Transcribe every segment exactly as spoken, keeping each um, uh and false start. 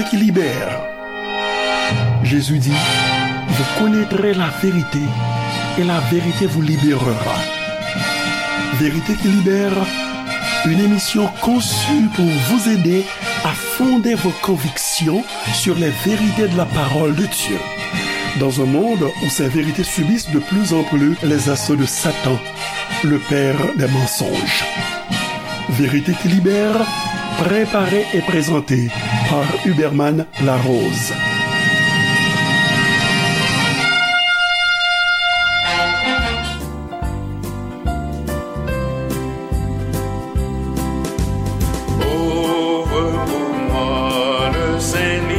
qui libère. Jésus dit, vous connaîtrez la vérité et la vérité vous libérera. Vérité qui libère, une émission conçue pour vous aider à fonder vos convictions sur les vérités de la parole de Dieu. Dans un monde où ces vérités subissent de plus en plus les assauts de Satan, le père des mensonges. Vérité qui libère, préparée et présentée par Huberman Larose. Ouvre pour moi le Saint-Livre,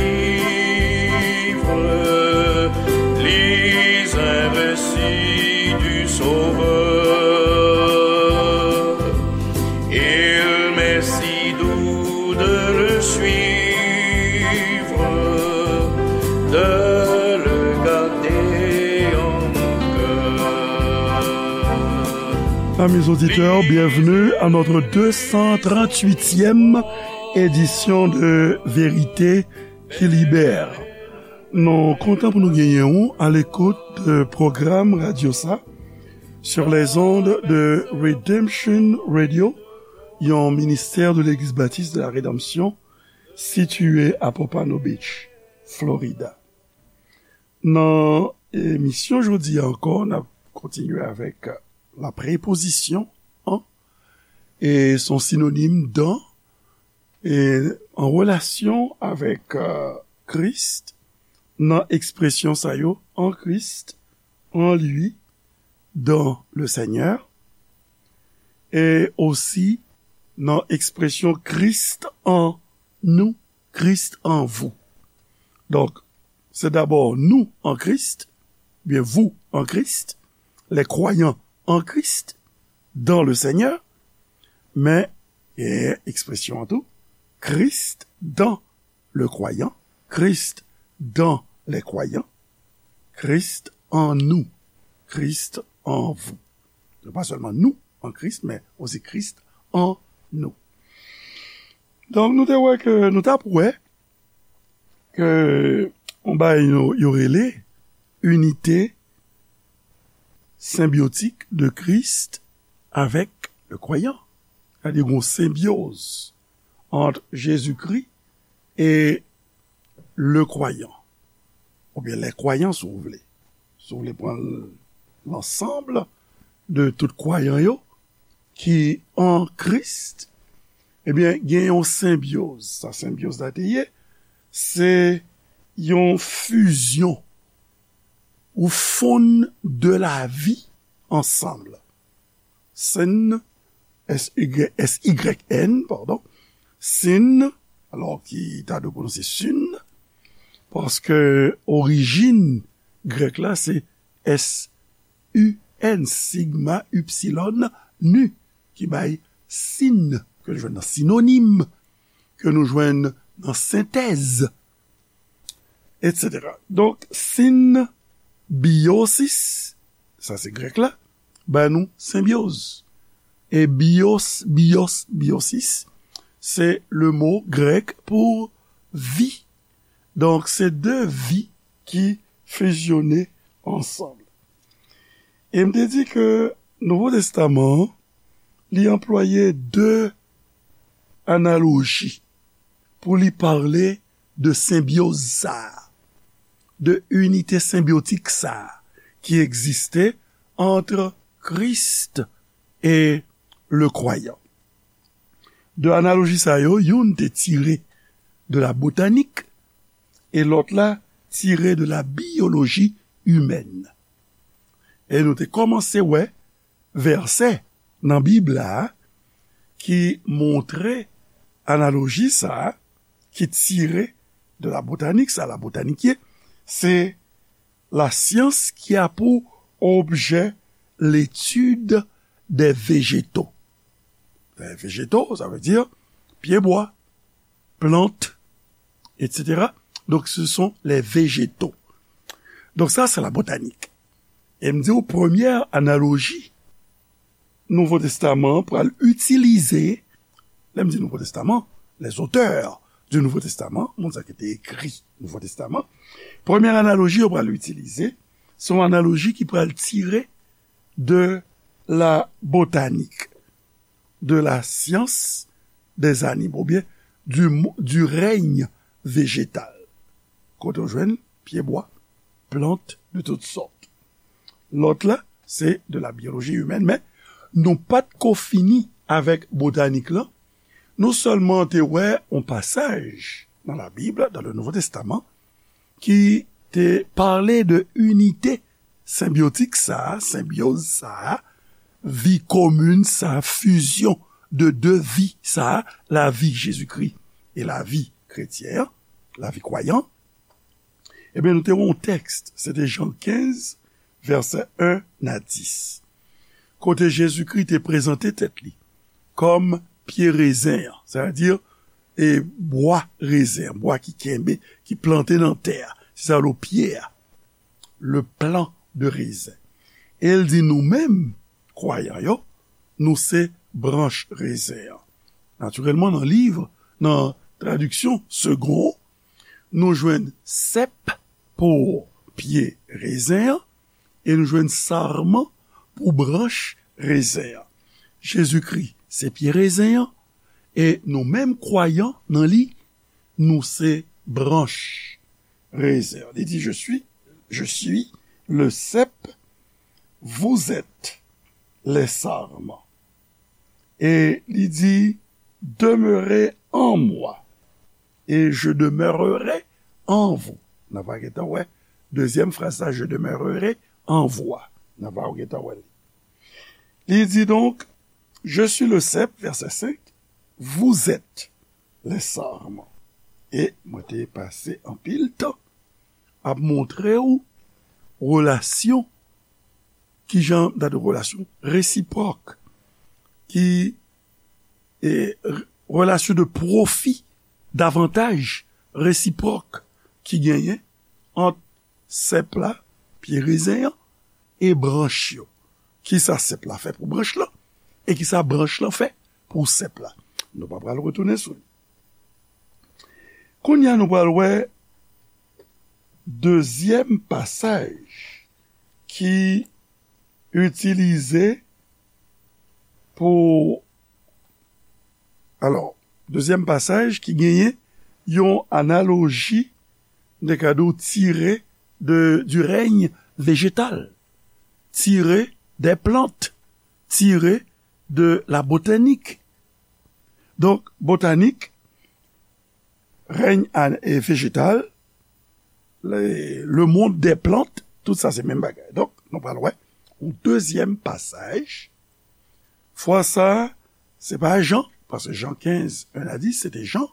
lis un récit du Sauveur. Il m'est si doux de le suivre, de le garder en mon cœur. Amis auditeurs, bienvenue à notre deux cent trente-huitième édition de Vérité qui libère. Nou kontan pou nou genyen w à l'écoute de pwogram radyo sa sur les ondes de Redemption Radio, yon ministè de Legliz Batis de la Redanmsyon sitiye a Pompano Beach, Florida. Nan emisyon jodi a ankò, n ap kontinye avèk la prepozisyon an e son sinonim dan e an relasyon avèk, euh, Kris nan ekspresyon sa yo, en Christ, en lui, dans le Seigneur, e osi nan ekspresyon Christ en nous, Christ en vous. Donk, se dabò nou an Kris, byen vous en Christ, les croyants en Christ, dans le Seigneur, men, e ekspresyon an tou, Christ dans le croyant, Christ dans les croyants, Christ en nous, Christ en vous. Se pa sèlman nou an Kris, men osi Christ en nous. Donk, nou te wè ke, nou t ap wè ke yon bagay yo, yo rele unité symbiotique de Christ avec le croyant. Sètadi, gen yon senbyoz ant Jezikri e le croyant, oubyen les croyants, si w vle. Si w vle pran l, lansanm de tout kwayan yo ki an Kris, ebyen, gen yon senbyoz. Sa senbyoz la te ye, se yon fizyon ou fonn de lavi ansanm. Sin, S Y, S Y N, padon, sin, alò ki ta dwe pwononse sin, paske orijin grèk la se S U N, sigma, ipsilon, nu, ki bay sin, ke nou jwenn nan sinonim, ke nou jwenn nan sentèz, etsetera. Donk, sin, biosis, sa se grèk la, ba nou senbyoz. E bios, bios, biosis, se le mo grèk pou vi. Donk, se de vi ki fizyone ansanm. E m te di ke Nouvo Testaman an, li anplwaye de analoji pou li pale de senbyoz sa a, de inite senbyotik sa a ki egziste ant Kris e le kwayan. De analoji sa yo, youn te tire de la botanik e lòt la tire de la biyoloji imèn. E nou te kòmanse wè vèsè nan Bib la ki montre analoji sa a ki tire de la botanik, sa la botanik ye, se la science qui a pour objet l'étude des végétaux. Les végétaux, ça veut dire pyebwa, plant, etsetera. Donc, ce sont les végétaux. Donc, ça, c'est la botanique. E m di w, premyè analoji Nouvo Testaman an pral itilize, lè m di Nouvo Testaman, les auteurs du Nouveau Testament, moun sa ki te ekri Nouvo Testaman, premye analoji yo pral itilize, se yon analoji ki pral tire de la botanik, de la science des animaux, oubyen du, mo- du règne végétal. Kote w jwenn pyebwa, plant de toutes sortes. Lòt la, se de la biologie humaine, men nou pa t ko fini avèk botanik lan. Nou sèlman te wè yon pasaj nan la Bib, dans le Nouveau Testament, ki te pale de inite senbyotik sa a, senbyoz sa a, vi komin sa a, fizyon de de vi sa a, lavi Jezikri e lavi kretyen an, lavi kwayan. Ebyen, nou te wè yon tèks, se te Jan kenz, vèsè en a dis, kote Jezikri te prezante tèt li kòm pye rezen an, sètadi e bwa rezen, bwa ki kenbe, ki plante nan tè a. Se sa yo rele pye a, le plant de raisin. E l di nou menm, kwayan yo, nou se branch rezen an. Natirèlman, nan liv, nan tradiksyon Segond, nou jwenn sèp pou pye rezen an, e nou jwenn sarman pou branch rezen an. Jezikri se pye rezen an, e nou menm kwayan nan li, nou se branch rezen an. Li di, je suis, je suis le cep, vous êtes les sarments. E li di, demeurez en moi, et je demeurerai en vous. N a va gentan wè dezyèm fraz la, je demeurerai en vous. N a va gentan wè li. Li di donk, je suis le cep, vèsè senk, vous êtes les sarments. E mwen te pase anpil tan ap montre w relasyon, ki jan, dat relasyon resipwòk, ki e, relasyon de pwofi, davantaj resipwòk ki genyen ant sèp la, pye rezen an, e branch yo. Kisa sèp la fè pou branch lan, e kisa branch lan fè pou sèp la. Nou pa pral retounen sou li. Kounye a, nou pral wè dezyèm pasaj ki itilize pou, alò, dezyèm pasaj ki genyen yon analoji, de ka di w, tire de, du règne végétal, tire des plantes, tire de la botanik. Donk, botanik, règne an- e vejetal, le, le monde des plantes, tout sa se menm bagay. Donk, nou pral wè yon dezyèm pasaj. Fwa sa, se pa Jan, paske Jan kenz, en a dis, se te Jan.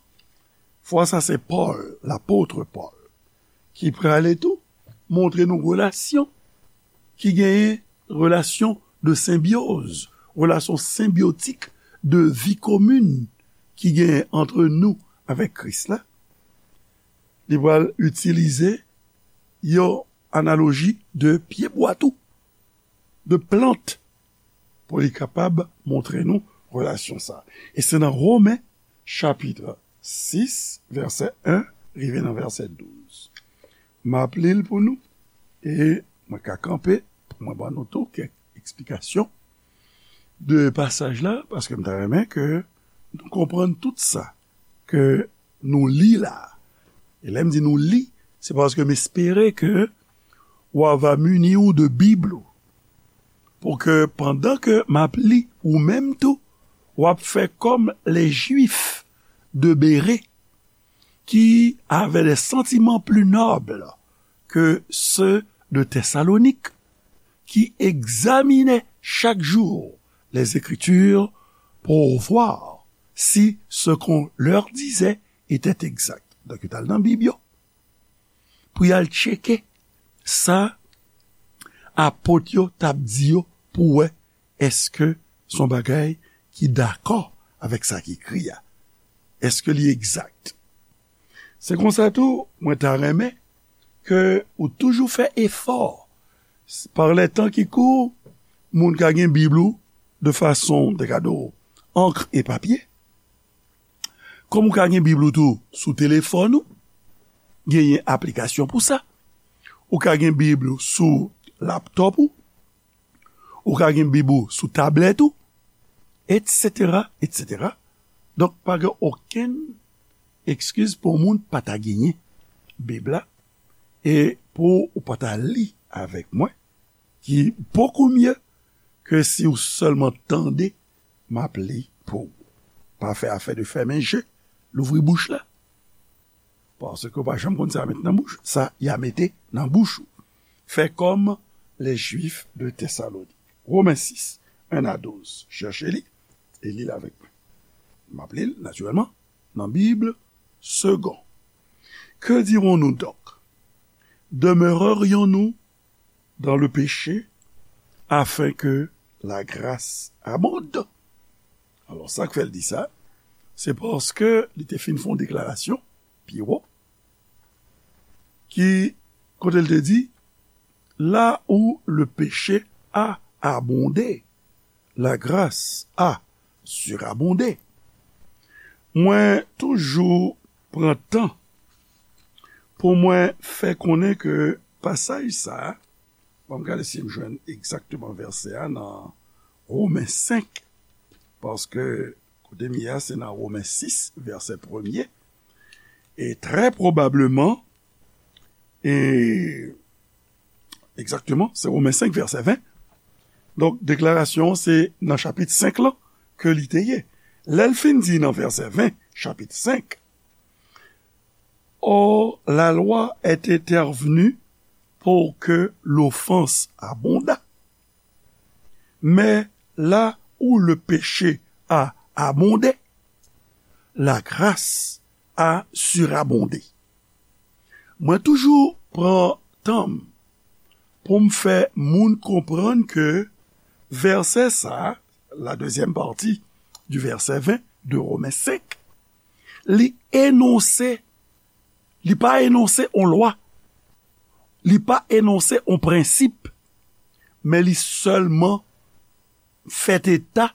Fwa sa, se Pòl, lapot Pòl, ki prale tou montre nou relasyon ki genyen, relasyon de senbyoz, relasyon senbyotik de vi komin ki genyen ant nou avèk Kris la. Li pral itilize yon analoji de pyebwa tou, de plant, pou li kapab montre nou relasyon sa. E se nan Women, chapit sis, vèsè en, rive nan vèsè douz. M ap li l pou nou, e mwen ka kanpe pou mwen ban nou tou kèk eksplikasyon de pasaj la, paske m ta renmen ke nou konprann tout sa ke nou li la. E lè m di nou li, se paske m espere ke w a va mini w de Bib ou, pou ke pandan ke m ap li, ou menm tou, w ap fè kòm les Juifs de Bérée, qui avaient des sentiments plus nobles que ceux de Thessalonique, qui examinaient chaque jour les Écritures pour voir si ce qu'on leur disait était exact. Donk, yo t al nan Bib yo pou y al tcheke sa apot yo t ap di yo, pou wè èske se yon bagay ki dakò avèk sa ki ekri a, èske li egzak. Se konsa tou, mwen ta renmen ke ou toujou fè efò, par les temps qui courent, moun ka gen Bib ou de fason, de ka di w, ankr e papye, Kòm ou ka gen Bib ou tou sou telefòn ou, genyen aplikasyon pou sa. Ou ka gen Bib ou sou laptòp ou, ou ka gen Bib ou sou tablèt ou, etsetera, etsetera. Donk, pa gen okenn eskiz pou yon moun pa ta genyen Bib la, e pou ou pa ta li avèk mwen, ki bokou mye ke si ou sèlman tande, m ap li pou ou. Pa fè afè de fèmen je, louvri bouch la. Paske w pa janm konn sa y a met nan bouch, sa y a mete nan bouch ou. Fè kòm les Juifs de Thessalonique. Women sis, en a douz. Chèche li, e li l avèk mwen. M ap li l, natirèlman, nan Bib Segond. Que dirons-nous donc? Demeurerions-nous dans le péché afin que la grâce abonde? Alò, sa k fè l di sa, se paske li te fin fè yon deklarasyon pi wo, ki, kote l te di, là où le péché a abondé, la grâce a surabondé. Mwen toujou pran tan pou mwen fè konnen ke pasaj sa a, bon, m gade si m jwenn egzakteman vèsè a nan Women senk, paske kote m ye a, se nan Women sis, vèsè premye, e trè pwobableman, e egzakteman, se Women senk, vèsè ven. Donk, deklarasyon an se nan chapit senk lan ke li te ye. Lè l fin di nan vèsè ven, chapit senk, Or, la loi est intervenue pour que l'offense abondât. Mais là où le péché a abondé, la grâce a surabondé. Mwen toujou pran tan m pou m fè moun konprann ke vèsè sa a, la deuxième partie du verset vingt de Romains cinq, li enonse, li pa enonse on lwa, li pa enonse on prensip, men li sèlman fèt eta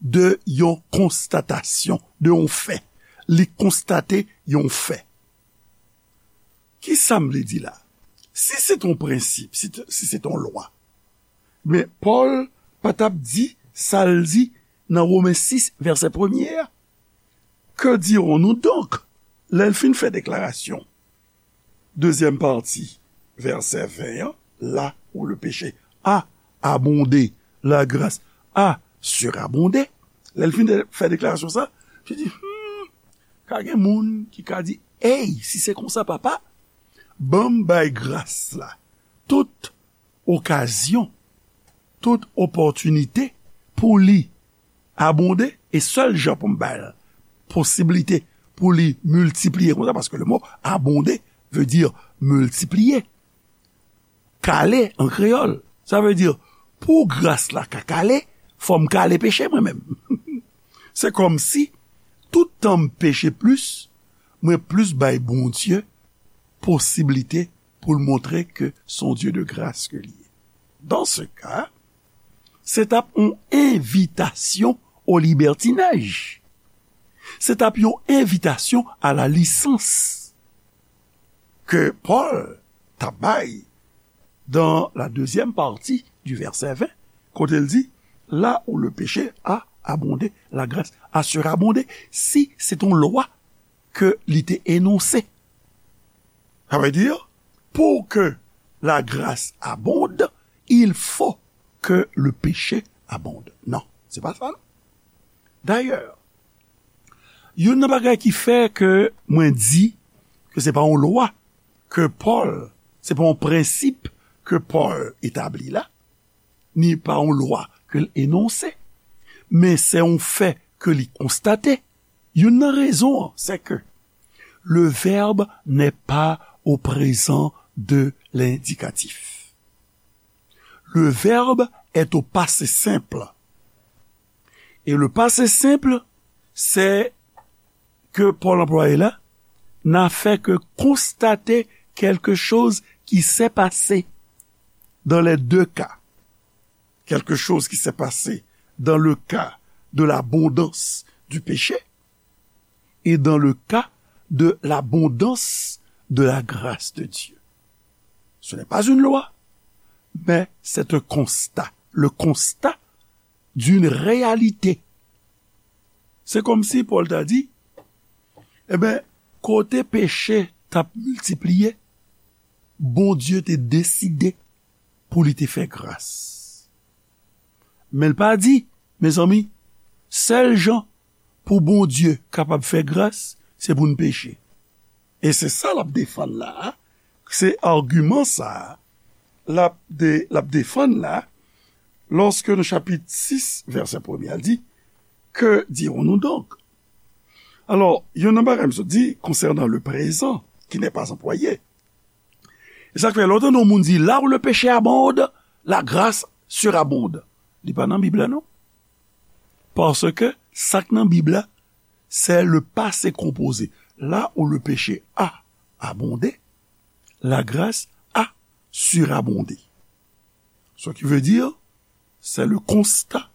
de yon konstatasyon, de yon fè. Li konstate yon fè. Kisa m vle di la? Si se t on prensip, si t, si se t on lwa, men Pòl pa t ap di sa l di nan Women sis, vèsè premye a. Que dirons-nous donc? Lè l fin fè deklarasyon, dezyèm pati, vèsè ven an, là où le péché a abondé, la grâce a surabondé. Lè l fin de, fè deklarasyon sa, li di, hmm, ka gen moun ki ka di, ey, si se konsa, papa, ban m bay gras la tout okazyon, tout opòtinite pou li abonde, e sèl jan pou m ba l posiblite pou li miltipliye konsa, paske le mo abonde veut dire multiplier, kale an kreyòl. Sa vle di, pou gras la ka kale, fò m kale peche mwen menm. Se kòmsi, tout tan m peche plis, mwen plis bay Bondye posiblite pou l montre ke se yon Dye de gras ke li ye. Dans ce cas, se t ap yon envitasyon o libètinaj. Se t ap yon envitasyon a la lisans ke Pòl t ap bay dans la deuxième partie du verset vingt, kote l di, là où le péché a abondé, la grâce a surabondé. Si se t on lwa ke li te enonse. Sa vle di, pour que la grâce abonde, il faut que le péché abonde. Non, se pa sa, non. Dayè, youn nan bagay ki fè ke mwen di ke se pa yon lwa ke Pòl, se pa yon prensip ke Pòl etabli la, ni pa yon lwa ke l enonse, men se yon fè ke li konstate. Youn nan rezon an, se ke le verbe n'est pas au présent de l'indicatif. Le verbe est au passé simple. Et le passé simple, c'est que Paul employé là n'a fait que constater quelque chose qui s'est passé dans les deux cas. Quelque chose qui s'est passé dans le cas de l'abondance du péché et dans le cas de l'abondance de la grâce de Dieu. Ce n'est pas une loi, mais c'est un constat, le constat d'une réalité. Se kòmsi Pòl ta di, enben, kote peche t ap miltipliye, Bondye te deside pou li te fè gras. Men l pa di, mezanmi, sèl jan pou Bondye kapab fè gras, se pou n peche. E se sa l ap defann la a, se agiman sa a l ap de, l ap defann la, lorsque nan chapit sis, vèsè premye a, l di, Que dirons-nous donc? Alò, youn nan bagay m sot di, concernant le présent qui n'est pas employé, e sa k fè lè w tande yon moun di, là où le péché abonde, la grâce surabonde. Li pa nan Bib la, non. Paske sa k nan Bib la, c'est le passé composé. Là où le péché a abondé, la grâce a surabondé. Ce qui veut dire, c'est le constat,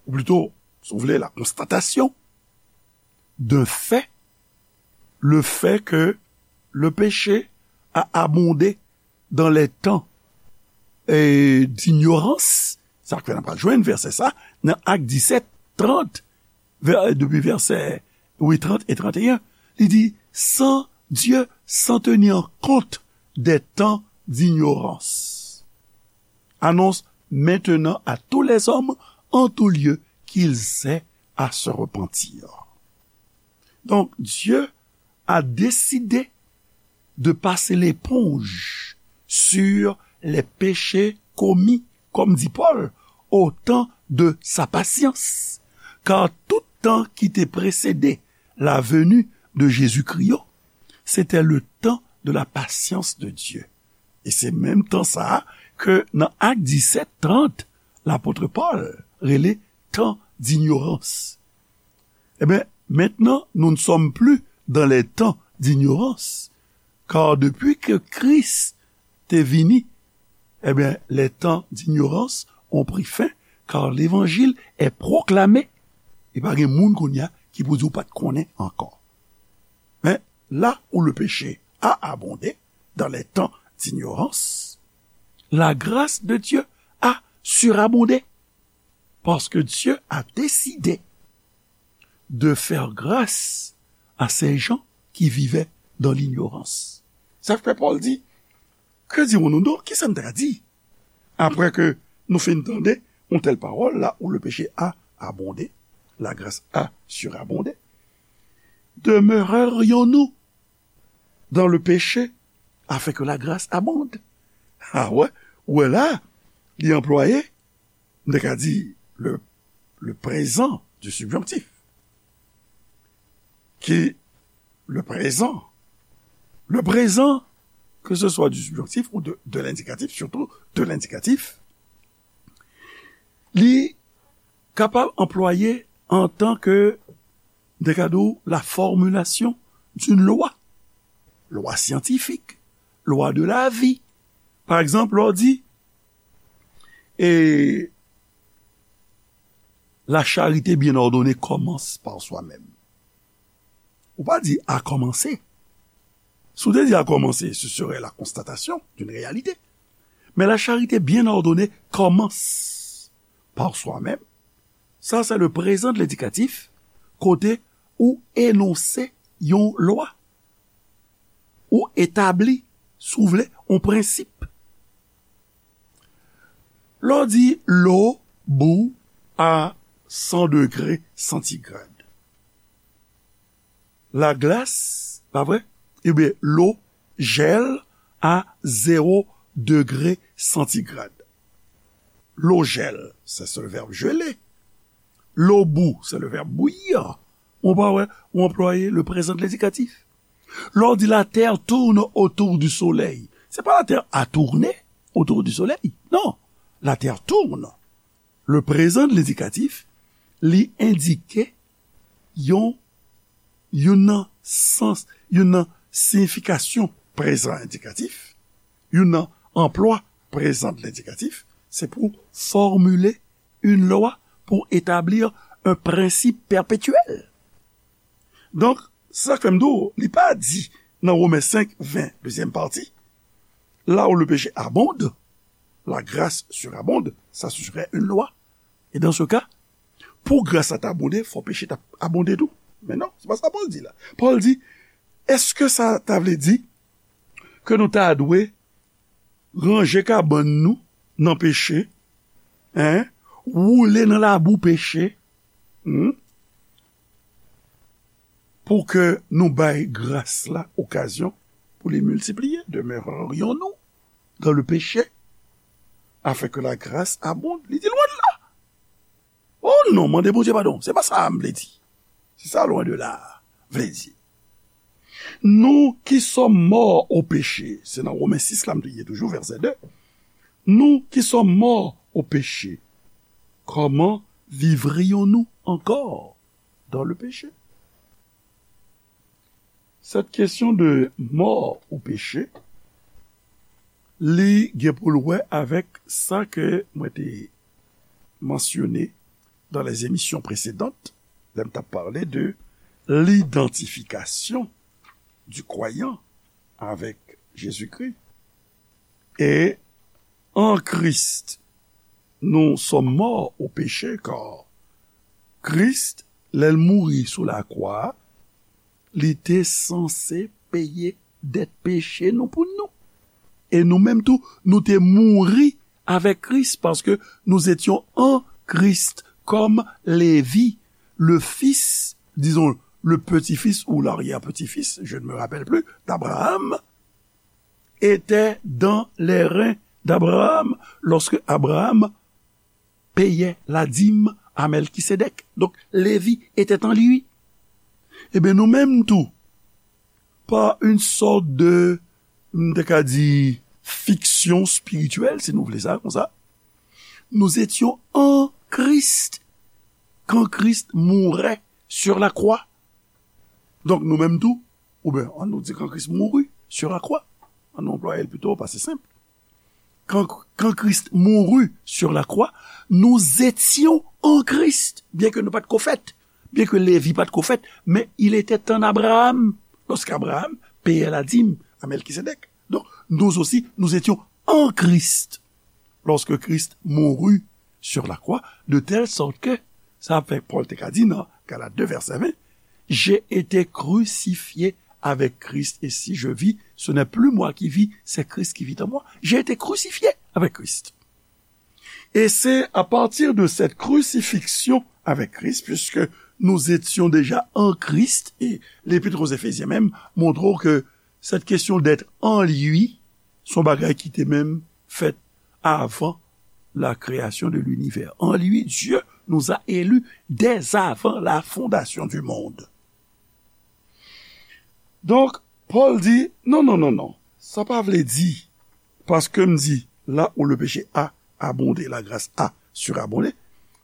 ou plutôt, si vous voulez, la constatation d'un fait, le fait que le péché a abondé dans les temps, eh, d'ignorance. Sa k fè n ap jwenn vèsè sa nan Ak disèt, trant, vè-, depi vèsè, wi, trant e trant et un. Li di, sans Dieu, sans tenir compte des temps d'ignorance, annonce maintenant à tous les hommes en tout lieu qu'ils aient à se repentir. Donc, Dieu a décidé de passer l'éponge sur les péchés commis, comme dit Paul, au temps de sa patience. Car tout temps qui te précédait la venue de Jésus-Christ, c'était le temps de la patience de Dieu. E se menm tan sa a ke nan Ak disèt, trant, lapot Pòl rele tan dinyorans. Ebyen, maintenant, nous ne sommes plus dans les temps d'ignorance, car depuis que Christ est venu, ebyen, les temps d'ignorance ont pris fin, car l'évangile est proclamé. E pa gen moun kounye a ki pou di w pa t konnen ankò. Men, là où le péché a abondé dans les temps d'ignorance, la grâce de Dieu a surabondé. Parce que Dieu a décidé de faire grâce à ces gens qui vivaient dans l'ignorance. Sa fè Pòl di, que dirons-nous donc? Kisa n ta di? Après que nous fin tande une telle parole, là où le péché a abondé, la grâce a surabondé. Demeurerions-nous dans le péché afin que la grâce abonde? Ah ouais, ou wè la, li anplwaye, m te ka di le, le présent du subjonctif. Qui, le présent, le présent, que ce soit du subjonctif ou de, de l'indicatif, surtout de l'indicatif, li kapab anplwaye antan ke, m te ka di w, la formulation d'une loi. Lwa syantifik, lwa de la vi. Pa egzanp, lè w di, et la charité bien ordonnée commence par soi-même. Ou pa di a kòmanse. Si w te di a kòmanse, ce serait la constatation d'une réalité. Mais la charité bien ordonnée commence par soi-même. Ça, c'est le présent de l'indicatif, kote ou enonse yon lwa, ou etabli, si w vle, yon prensip. Lè w di l'eau bout à cent degrés centigrades, la glace, pa vre? Ebyen, l'eau gèle à zéro degré centigrade. L'eau gèle, c'est le verbe geler. L'eau bout, c'est le verbe bouillir. Ou pa wè, ou anplwaye le présent de l'indicatif. Lè w di la terre tourne autour du soleil, se pa la terre a tourné autour du soleil. Non, la terre tourne. Le présent de l'indicatif, li endike yon, yon nan sans, yon nan siyifikasyon prezan endikatif, yon nan anplwa prezan de lendikatif, se pou formile une loi, pour établir un principe perpétuel. Donk, se sa k fè m di w, li pa di nan Women senk ven, dezyèm pati, là où le péché abonde, la grâce surabonde, ça serait une loi. Et dans ce cas, pou gras la ta abonde, fò peche ta abonde tou. Men non, se pa sa Pòl di la. Pòl di, èske sa ta vle di ke nou ta dwe ranje kabann nou nan peche, en, woule nan labou peche, hmm, pou ke nou bay gras la okazyon pou li miltipliye? Demeurerions-nous dans le péché afin que la grâce abonde? Li di lwen de la. Oh non, mande Bondye padon. Se pa sa m vle di. Se sa loin de là vle di. Nous qui sommes morts au péché, se nan Women sis la m te ye toujou, vèsè de. Nous qui sommes morts au péché, comment vivrions-nous encore dans le péché? Cette question de mort au péché, li gen pou l wè avèk sa ke mwen te mansyone dans les émissions précédentes, lè m t ap pale de l'identification du croyant avec Jésus-Christ. Et en Christ, nous sommes morts au péché, car Christ, lè l mouri sou lakwa, li te sanse peye dèt peche nou pou nou. E nou menm tou, nou te mouri avec Christ, parce que nous étions en Christ, comme Lévi, le fils, disons, le petit-fils ou l'arrière-petit-fils, je ne me rappelle plus, d'Abraham, était dans les reins d'Abraham lorsque Abraham payait la dîme à Melchisédek. Donc, Lévi était en lui. Ebyen, nou menm tou, par une sorte de, m te ka di, fiction spirituelle, si nou vle sa konsa, nous étions en Christ quand Christ mourait sur la croix. Donk, nou menm tou, oubyen, ann nou di quand Christ mourut sur la croix, ann nou anplwaye l pito, paske se senp. Quand, quand Christ mourut sur la croix, nous étions en Christ, byen ke nou pa t ko fèt, byen ke Lévi pa t ko fèt, mais il était en Abraham, lorsqu'Abraham payait la dîme à Melchisédek. Donc, nous aussi, nous étions en Christ, lorsque Christ mourut sur la croix, de telle sorte que, sa fè Pòl te ka di nan Galat de vèsè ven, j'ai été crucifié avec Christ, et si je vis, ce n'est plus moi qui vis, c'est Christ qui vit en moi. J'ai été crucifié avec Christ. Et c'est à partir de cette crucifixion avec Christ, puisque nous étions déjà en Christ, et l'Épître aux Éphésiens même montre que cette question d'être en lui, se yon bagay ki te menm fèt avant la création de l'univers. En lui, Dieu nous a élus dès avant la fondation du monde. Donk, Pòl di, non, non, non, non. Sa pa vle di, paske m di, là où le péché a abondé, la grâce a surabondé,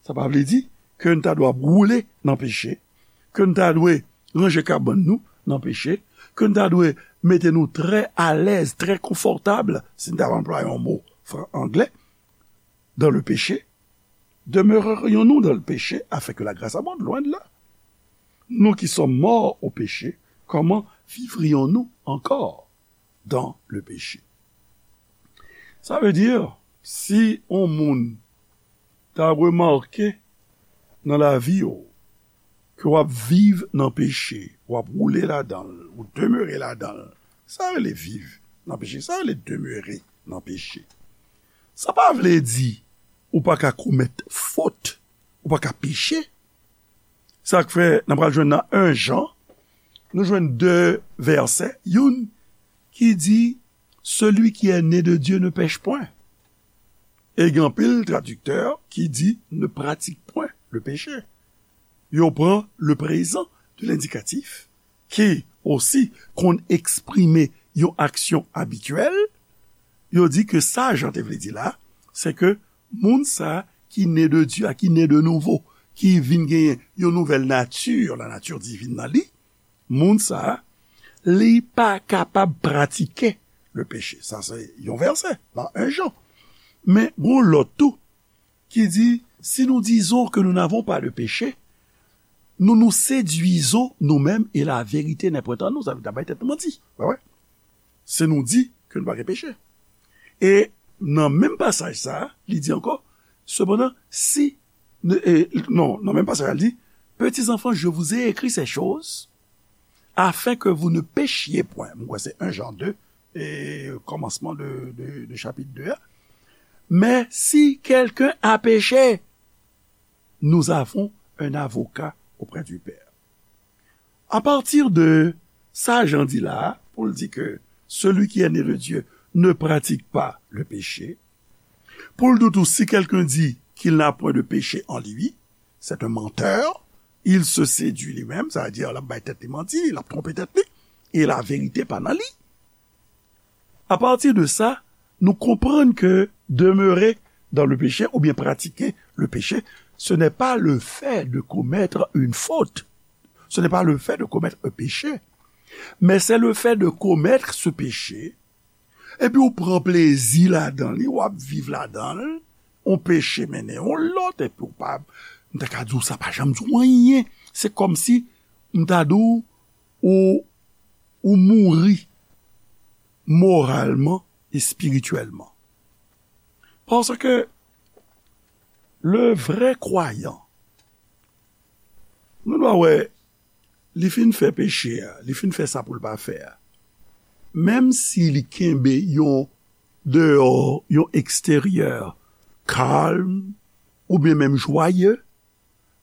sa pa vle di ke n ta dwe ap woule nan peche, ke n ta dwe ranje kabann nou nan peche, ke n ta dwe mete nou trè alèz, trè konfòtab, si n ta anplwaye yon mo fran-, anglè, dans le péché. Demeurerions-nous dans le péché afin que la grâce abonde? Loin de là. Nous qui sommes morts au péché, comment vivrions-nous encore dans le péché? Sa vle di, si yon moun ta remake nan lavi w ke w ap viv nan peche, w ap woule ladan l, ou demere ladan l, sa rele viv nan peche, sa rele demere nan peche. Sa pa vle di ou pa ka komèt fot, ou pa ka peche. Sa k fè n ap pral jwenn nan en Jan, nou jwenn de vèsè, youn ki di, celui qui est né de Dieu ne pèche point. E gen anpil tradiktè ki di, ne pratique point le péché. Yo pran le présent de l'indicatif, ki osi konn eksprime yon aksyon abityèl, yo di ke sa Jan te vle di la, se ke moun sa ki ne de Dye a, ki ne de nouvo, ki vin genyen yon nouvèl nati, la nature divine nan li, moun sa, li pa kapab pratike le péché. Sa se yon vèsè nan en Jan. Men gon lòt tou ki di, si nous disons que nous n'avons pas de péché, Nous nous séduisons nous-mêmes et la vérité n'est point en nous. Sa vle di n ap bay tèt nou manti. Wè, wè. Se nou di ke nou pa gen peche. E nan menm pasaj sa a, li di ankò, sepandan, si, e, non, nan menm pasaj la, li di, Petits enfants, je vous ai écrit ces choses afin que vous ne péchiez point. Mwen kwè se en Jan de, e kòmansman de, de, de chapit de a. Mais si quelqu'un a péché, nous avons un avocat auprès du Père. A pati de sa Jan di la, pou l di ke celui qui est né de Dieu ne pratique pas le péché, pou l di tou, si quelqu'un dit qu'il n'a point de péché en lui, c'est un menteur, il se séduit lui-même, sa vle di l ap bay tèt li manti, l ap twonpe tèt li, e la verite pa nan li. A pati de sa, nou konprann ke demeurer dans le péché oubyen pratiquer le péché, ce n'est pas le fait de commettre une faute. Ce n'est pas le fait de commettre un péché. Mais c'est le fait de commettre ce péché, epi ou pran plezi ladan li, w ap viv ladan l, yon peche mennen yon lòt, epi ou pa, m ta ka di w sa pa janm di w anyen. Se kòmsi m ta di w, ou, ou mouri moralman, espirityèlman. Paske le vrè kwayan, nou dwa wè, li fin fè peche a, li fin fè sa pou l pa fè a. Menm si li kenbe yon deyò, yon eksteryè kalm, oubyen menm jwaye,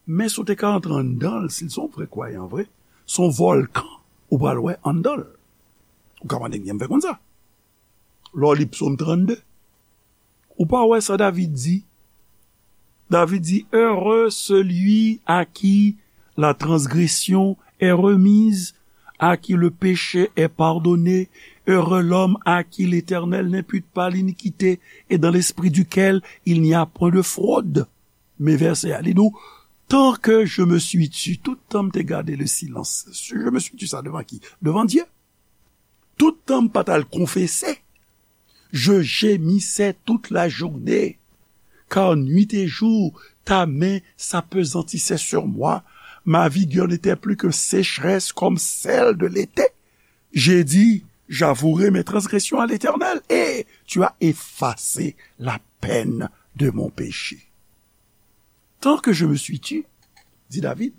men si w te ka antre anndan l, si l se yon vrè kwayan vre, se yon vòlkan ou pral wè anndan l. Ou ka mande m jan m fè konn sa. Lè w li Psaume trannde, ou pa wè sa David di? David di, Heureux celui à qui la transgression est remise, à qui le péché est pardonné. Heureux l'homme à qui l'Éternel n'impute pas l'iniquité et dans l'esprit duquel il n'y a point de fraude. Men vèsè a, li di w, Tant que je me suis tu, tout tan m te gade le silence, je me suis tu sa devan ki? Devan Dye. Tout tan m pa t al konfese, je gémissais toute la journée, car nuit et jour ta main s'appesantissait sur moi. Ma vigueur n'était plus que sécheresse comme celle de l'été. J'ai dit, J'avouerai mes transgressions à l'Éternel, et tu as effacé la peine de mon péché. Tant que je me suis tu, dit David,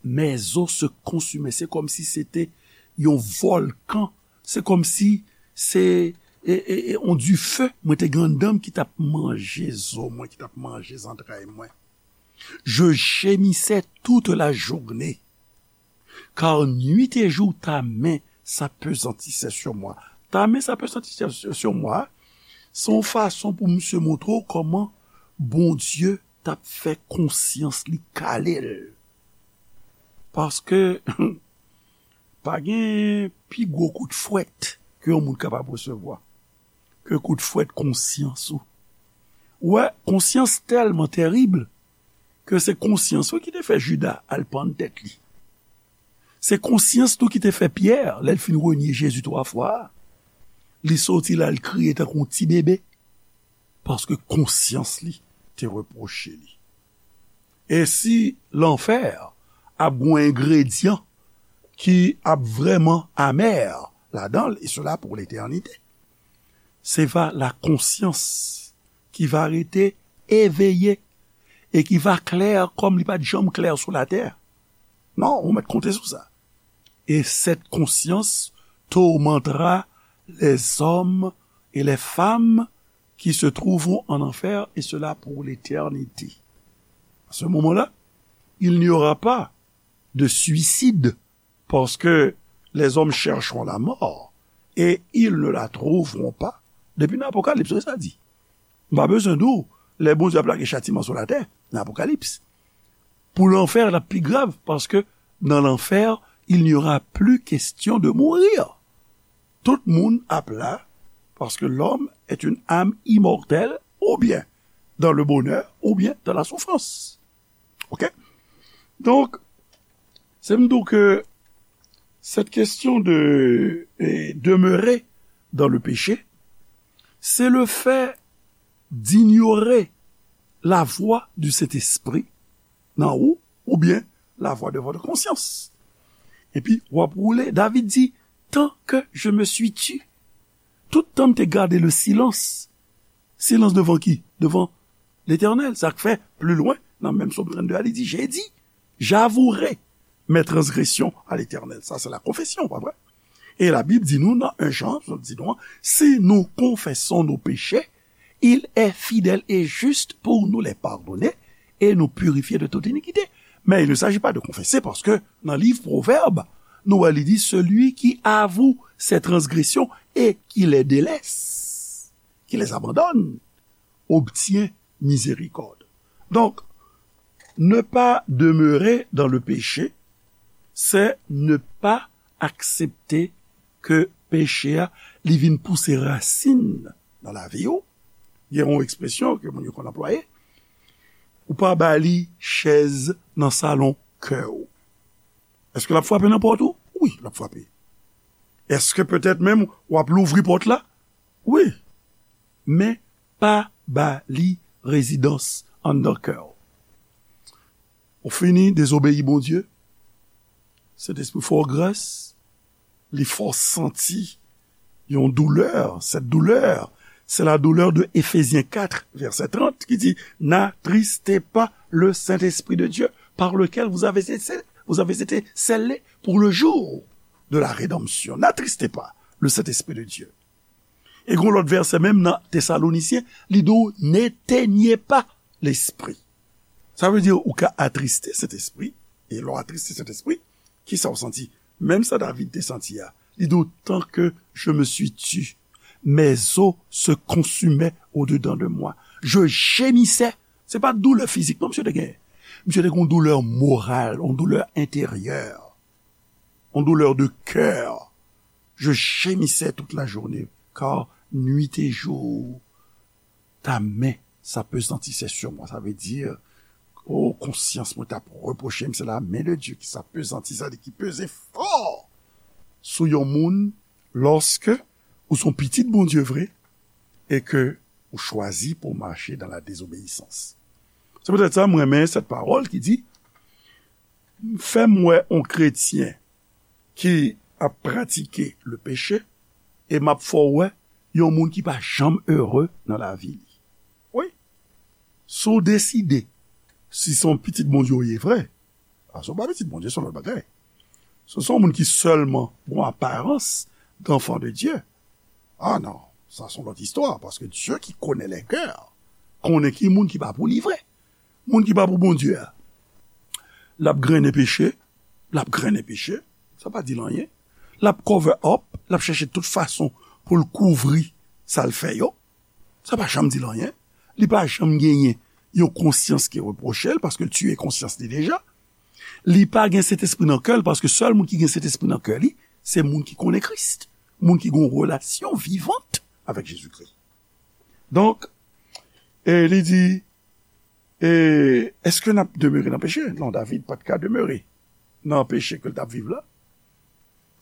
mes os se consumaient. Se kòmsi se te yon vòlkan. Se kòmsi se e, e, e, yon dife mwen te gen anndan m ki t ap manje zo mwen, ki t ap manje zantray mwen. Je gémissais toute la journée, car nuit et jour ta main s'appesantissait sur moi. Ta main s'appesantissait sur moi, se yon fason pou misye montre w kòman Bondye t ap fè konsyans li kale l. Paske pa gen pi gwo kout fwèt ke yon moun kapab resevwa ke kout fwèt konsyans ou. Ou wè, konsyans tèlman terib ke se konsyans ou ki te fè Jida al pann tèt li. Se konsyans tou ki te fè Pyè, lè l fin renye Jezi twa fwa a, li soti la, l kriye tankou yon ti bebe, paske konsyans li te repwoche li. E si lanfè ap gen yon engredyan ki ap vrèman amè ladan l, e sela pou letènite, se va la konsyans ki va rete eveye e ki va klè kòm li pa t janm klè sou latè. Non, ou mèt konte sou sa. Et cette conscience tourmentera les hommes et les femmes qui se trouveront en enfer, et cela pour l'éternité. À ce moment-là, il n'y aura pas de suicide, parce que les hommes chercheront la mort, et ils ne la trouveront pas. Depi nan Apokalips, se sa di. M pa bezwen di w, lè Bondye ap lage chatiman sou latè, nan Apokalips. Pou lanfè, l ap pi grav, paske nan lanfè, il n'y aura plus question de mourir. Tout moun ap la, parce que l'homme est une âme immortelle, ou bien dans le bonheur, ou bien dans la souffrance. Ok? Donk, se m di w ke cette question de eh, demeurer dans le péché, c'est le fait d'ignorer la voix du Saint-Esprit nan ou, oubyen la voix de votre conscience. Epi, w ap woule. David di, tant que je me suis tu, tout tan m te gade le silence. Silans devan ki? Devan Letènèl. Sa k fè, pli lwen, nan menm Sòm trannde a, li di, j'ai dit, j'avouerai mes transgressions à l'Éternel. Sa, se la konfesyon, pa vre? E Labib di nou nan en Jan, li di nou, si nous confessons nos péchés, il est fidèle et juste pour nous les pardonner et nous purifier de toute iniquité. Mais il ne s'agit pas de confesser, paske nan liv Pwovèb, nou wè li di, celui qui avoue ses transgressions et qui les délaisse, qui les abandonne, obtient miséricorde. Donc, ne pas demeurer dans le péché, c'est ne pas accepter ke peche a, li vin pouse rasin nan lavi w. Gen yon ekspresyon ke moun yo konn anplwaye, ou pa ba li chèz nan salon kè w. Èske l ap frape nan pòt ou? Wi, l ap frape. Èske petèt menm w ap louvri pòt la? Wi. Men pa ba li rezidans anndan kè w. Ou fini dezobeyi Bondye. Sentespri fè w gras, li fè w santi yon doulè. Cette douleur, c'est la douleur de Éphésiens quatre, verset trente, qui dit, n'attristez pas le Saint-Esprit de Dieu, par lequel vous avez été, vous avez été scellés pour le jour de la rédemption. N'attristez pas le Saint-Esprit de Dieu. E gen lòt vèsè menm nan Tesalonisyen, li di w, n'éteignez pas l'esprit. Sa vle di ou ka atriste Sentespri, e lè w atriste Sentespri, kisa w santi? Menm sa David te santi a. Li di w, tant que je me suis tu, mes os se consumaient au-dedans de moi. Je gémissais. Se pa doulè fizik non misye te genyen. Misye te gen yon doulè moral, yon doulè enteryè, yon doulè de kè. Je gémissais toute la journée, car nuit et jour, ta main s'appesantissait sur moi. Sa vle di, o, konsyans mwen t ap repwoche m, se la main de Dieu ki s'appesantissait, sa vle di ki peze fò sou yon moun, lòske ou se yon pitit Bondye vre e ke ou chwazi pou w mache dans la désobéissance. Se poutèt sa, m renmen sèt pawòl ki di, fè m wè yon kretyen ki ap pratike le peche, e m ap fè w wè yon moun ki pa janm ere nan lavi li. Wi. Si w deside, si se yon pitit Bondye w ye vre, a, si w pa pitit Bondye, se yon lòt bagay. Si w se yon moun ki sèlman gen yon aparans d'enfant de Dieu, a non, sa se yon lòt istwa, paske Dieu qui connaît les cœurs konnen ki moun ki pa pou li vre. Moun ki pa pou Bondye a, l ap grennen peche, l ap grennen peche, sa pa di l anyen. L ap cover up, l ap chèche tout fason pou l kouvri sa l fè yo. Sa pa janm di l anyen. Li pa janm genyen yon konsyans ki repwoche l, paske l tiye konsyans li deja. Li pa gen Sentespri nan kè l, paske sèl moun ki gen Sentespri nan kè li, se moun ki konnen Kris, moun ki gen yon relasyon vivant avèk Jezikri. Donk, e li di, e, èske n ap demere nan peche? Non, David pa t ka demere nan peche ke l t ap viv la.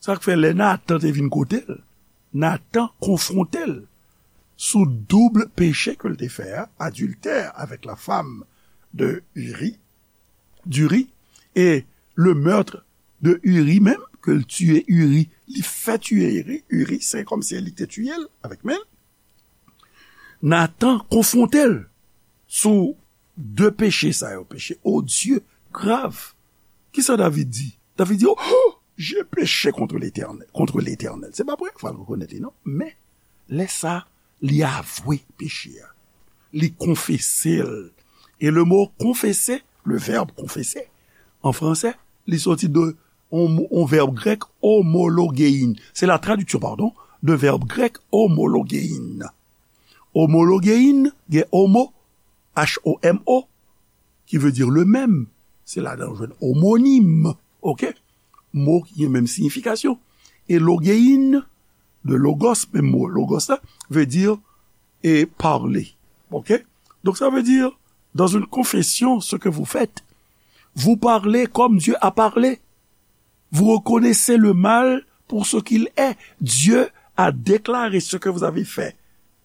Sa k fè lè Natan te vin kote l, Natan konfwonte l sou doub peche ke l te fè a, adiltè avèk la femme de Uri, d'Uri, e le meurtre de Uri menm, ke l tiye Uri, li fè tiye Uri, Uri, se kòmsi li te tiye l avèk men l. Natan konfwonte l sou de peche sa yo, peche odye, grav. Kisa David di? David di, oh, j'ai péché contre l'Éternel, contre l'Éternel. Se pa premye fwa l rekonèt li, non. Men, lè sa, li avwe peche a. Li konfese l. E le mo konfese, le verbe confesser, an fransè, li soti de yon, yon vèb grèk, homologein. Se la tradiksyon, pardon, de vèb grèk homologein. Homologein, gen homo, H O M O, ki vle di le même. Se ladan w jwenn omonim, oke? Mo ki gen menm siyifikasyon. E logein, de logos, menm mo logos la, vle di, e, parler. Oke? Donc ça veut dire, dans une confession, ce que vous faites, vous parlez comme Dieu a parlé. Vous reconnaissez le mal pour ce qu'il est. Dieu a déclaré ce que vous avez fait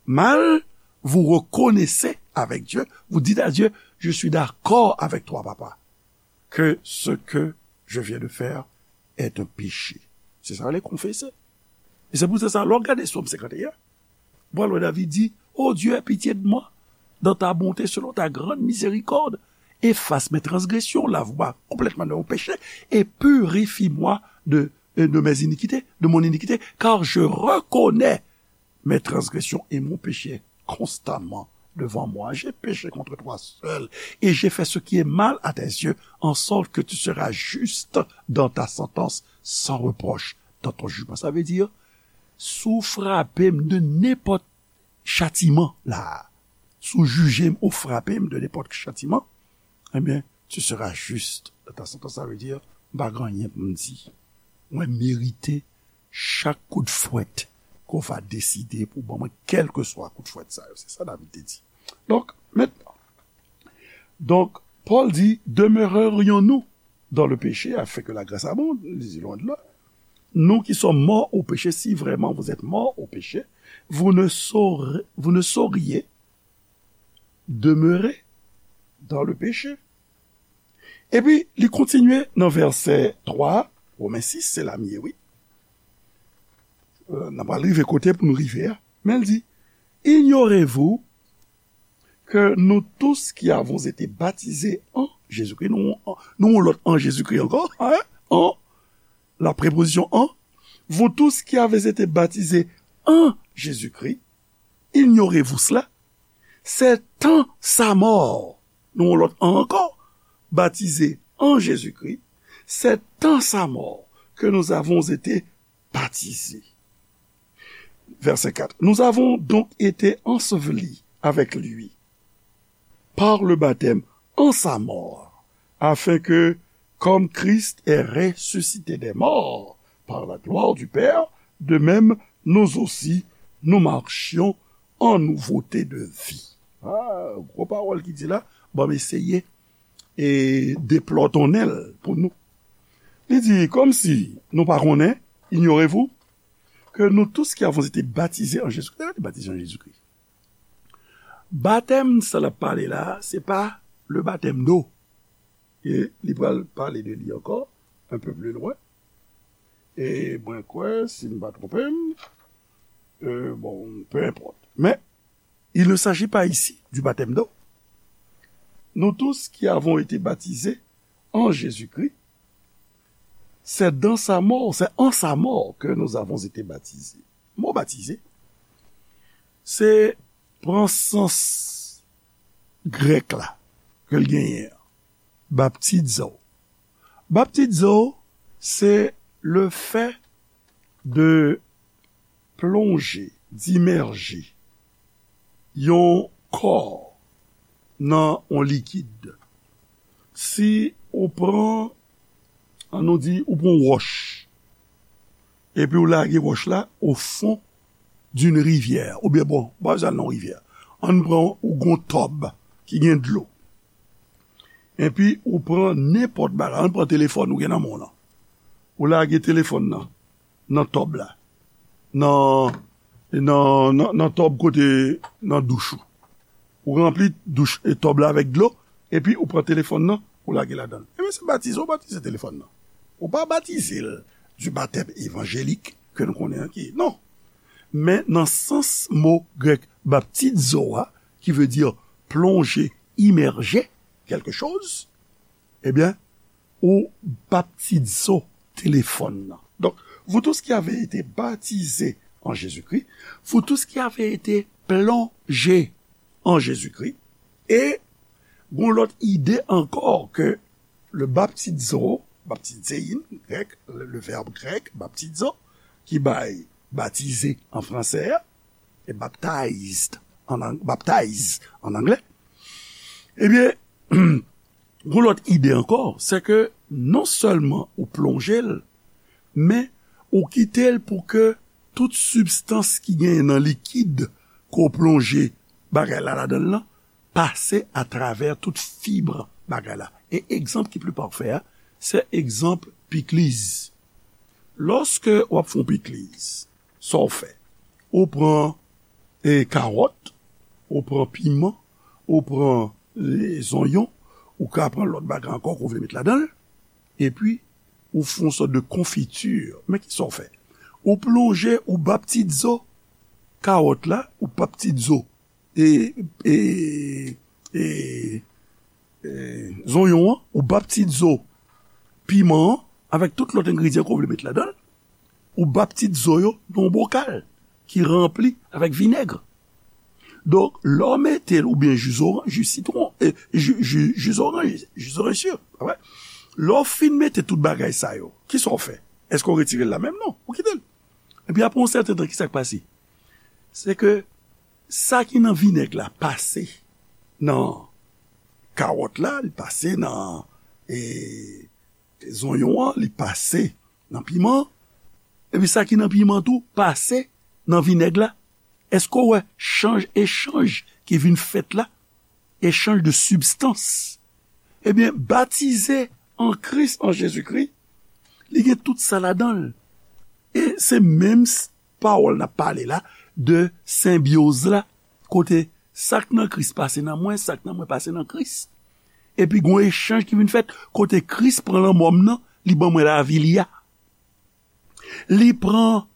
mal. Vous reconnaissez avec Dieu. Vous dites à Dieu, je suis d'accord avec toi, papa. que ce que je viens de faire est un péché. Se sa yo rele konfese. E se pou sa, lè w gade Sòm senkanteyen, w pral wè David di, Ô Dieu, aie pitié de moi, dans ta bonté, selon ta grande miséricorde, efface mes transgressions, lave-moi complètement de mon péché, et purifie-moi de, de mes iniquités, de mon iniquité, car je reconnais mes transgressions et mon péché constamment devant moi. J'ai péché contre toi seul, et j'ai fait ce qui est mal à tes yeux, en sorte que tu seras juste dans ta sentence, sans reproche dans ton jugement. Sa vle di, si w frape m de nenpòt chatiman la, si w jije m ou frape m de nenpòt chatiman, ebyen, tu seras juste dans ta sentence. Sa vle di, m pa gen anyen pou m di. Mwen merite chak kout fwèt ke w va deside pou ban mwen, kèlkeswa kout fwèt sa yo. Se sa David te di. Donk, mentnan, donk, Pòl di, demeurerions-nous dans le péché afin que la grâce abonde? Li di, loin de là. Nous qui sommes morts au péché, si vraiment vous êtes morts au péché, vous ne saurez, vous ne sauriez demeurer dans le péché. Epi, li kontinye nan vèsè twa, Women sis, se la m ye, wi. Euh, n ap rive kote pou nou rive a. Men l di, Ignorez-vous que nous tous qui avons été baptisés en Jésus-Christ, nou, nou yon lòt an Jezikri ankò, hein? En, la préposition en, vous tous qui avez été baptisés en Jésus-Christ, ignorez-vous cela, c'est en sa mort, nou yon lòt an ankò, baptisés en Jésus-Christ, c'est en sa mort que nous avons été baptisés. Verset quatre. Nous avons donc été ensevelis avec lui par le baptême en sa mort, afin que, comme Christ est ressuscité des morts par la gloire du Père, de même nous aussi nous marchions en nouveauté de vie. Ah, gwo pawòl ki di la, ban m eseye e deplòtonnen l pou nou. Li di, kòmsi nou pa konnen, ignorez-vous, que nous tous qui avons été baptisés en Jésus-Christ. Sa vle di batize an Jezikri. Batèm sa l ap pale la, se pa le baptême d'eau. E li pral pale de li ankò, un peu plus loin. E mwen kwè, si m pa twonpe m, euh, bon, peu importe. Men, il ne s'agit pas ici du baptême d'eau. Nous tous qui avons été baptisés en Jésus-Christ, c'est dans sa mort, c'est en sa mort que nous avons été baptisés. Mo batize, se pran sans grèk la, ke l genyen an. Baptizo. Baptizo, se le fait de plonger, d'immerger yon kò nan yon likid. Si ou pran, an nou di, ou pran yon wòch, epi ou lage wòch la au fond d'une rivière, oubyen bon, pa bezwen al nan rivyè. Ann pran ou gon tòb ki gen dlo. Epi ou pran nenpòt bagay, ann pran telefòn ou gen nan men w lan. Ou lage telefòn nan, nan tòb la. Nan, nan, nan, nan tòb kote, nan douch ou. Ou ranpli douch e tòb la avèk dlo, epi ou pran telefòn nan, ou lage ladan l. Ebyen, se batize, ou batize telefòn nan. Ou pa batize l du baptême évangélique ke nou konnen an ki. Non. Men nan sans mo grèk baptizo a, qui veut dire plonger, immerger quelque chose, ebyen, ou baptizo telefòn nan. Donc, vous tous qui avez été baptisés en Jésus-Christ, vous tous qui avez été plongés en Jésus-Christ, e gon lòt ide ankò ke le baptizo, baptizein, grèk, le, le verbe grec, baptizo, ki bay batize an fransè a, e baptized an ang-, baptize an anglè, ebyen, gon lòt ide ankò, se ke non sèlman ou plonje l, men ou kite l pou ke tout sibstans ki genyen nan likid ke w plonje bagay la ladan l lan, pase atravè tout fib bagay la. E egzanp ki pli pafè a, se egzanp pikliz. Lòske w ap fè yon pikliz, sa w fè? Ou pran, e, kawòt, ou pran piman, ou pran, e, zonyon, Ou ka pran lòt bagay ankò ke w vle met ladan l, epi ou fè yon sòt de konfiti. Men kisa w fè? Ou plonje, ou ba pitit zo kawòt la, ou ba pitit zo e, e, e, e, zonyon an, ou ba pitit zo piman an, avèk tout lòt engredyan ke w vle met ladan l, ou ba pitit zo yo nan yon bokal ki ranpli avèk vinèg. Donk, lè w mete l, oubyen ji zoran-, ji sitwon, e, ji, ji, ji zoranj, ji zoranj si, pa vre? Lè w fin mete tout bagay sa yo, kisa w fè? Èske w retire l la menm? Non, ou kite l. Epi apre yon sèten tan, kisa k pase? Se ke sa ki nan vinèg la pase nan kawòt la, li pase nan, e, zonyon an, li pase nan piman an, epi sa ki nan piman tou pase nan vinèg la. Èske w wè chanj, echanj ki vin fèt la? Echanj de sibstans. Ebyen, batize an Kris, an Jezikri, li gen tout sa ladan l. E se menm s-, pawòl n ap pale la de senbyoz la, kote sa k nan Kris pase nan mwen, sa k nan mwen pase nan Kris. Epi gen yon echanj ki vin fèt, kote Kris pran lanmò m nan, li ban mwen lavi li a. Li pran,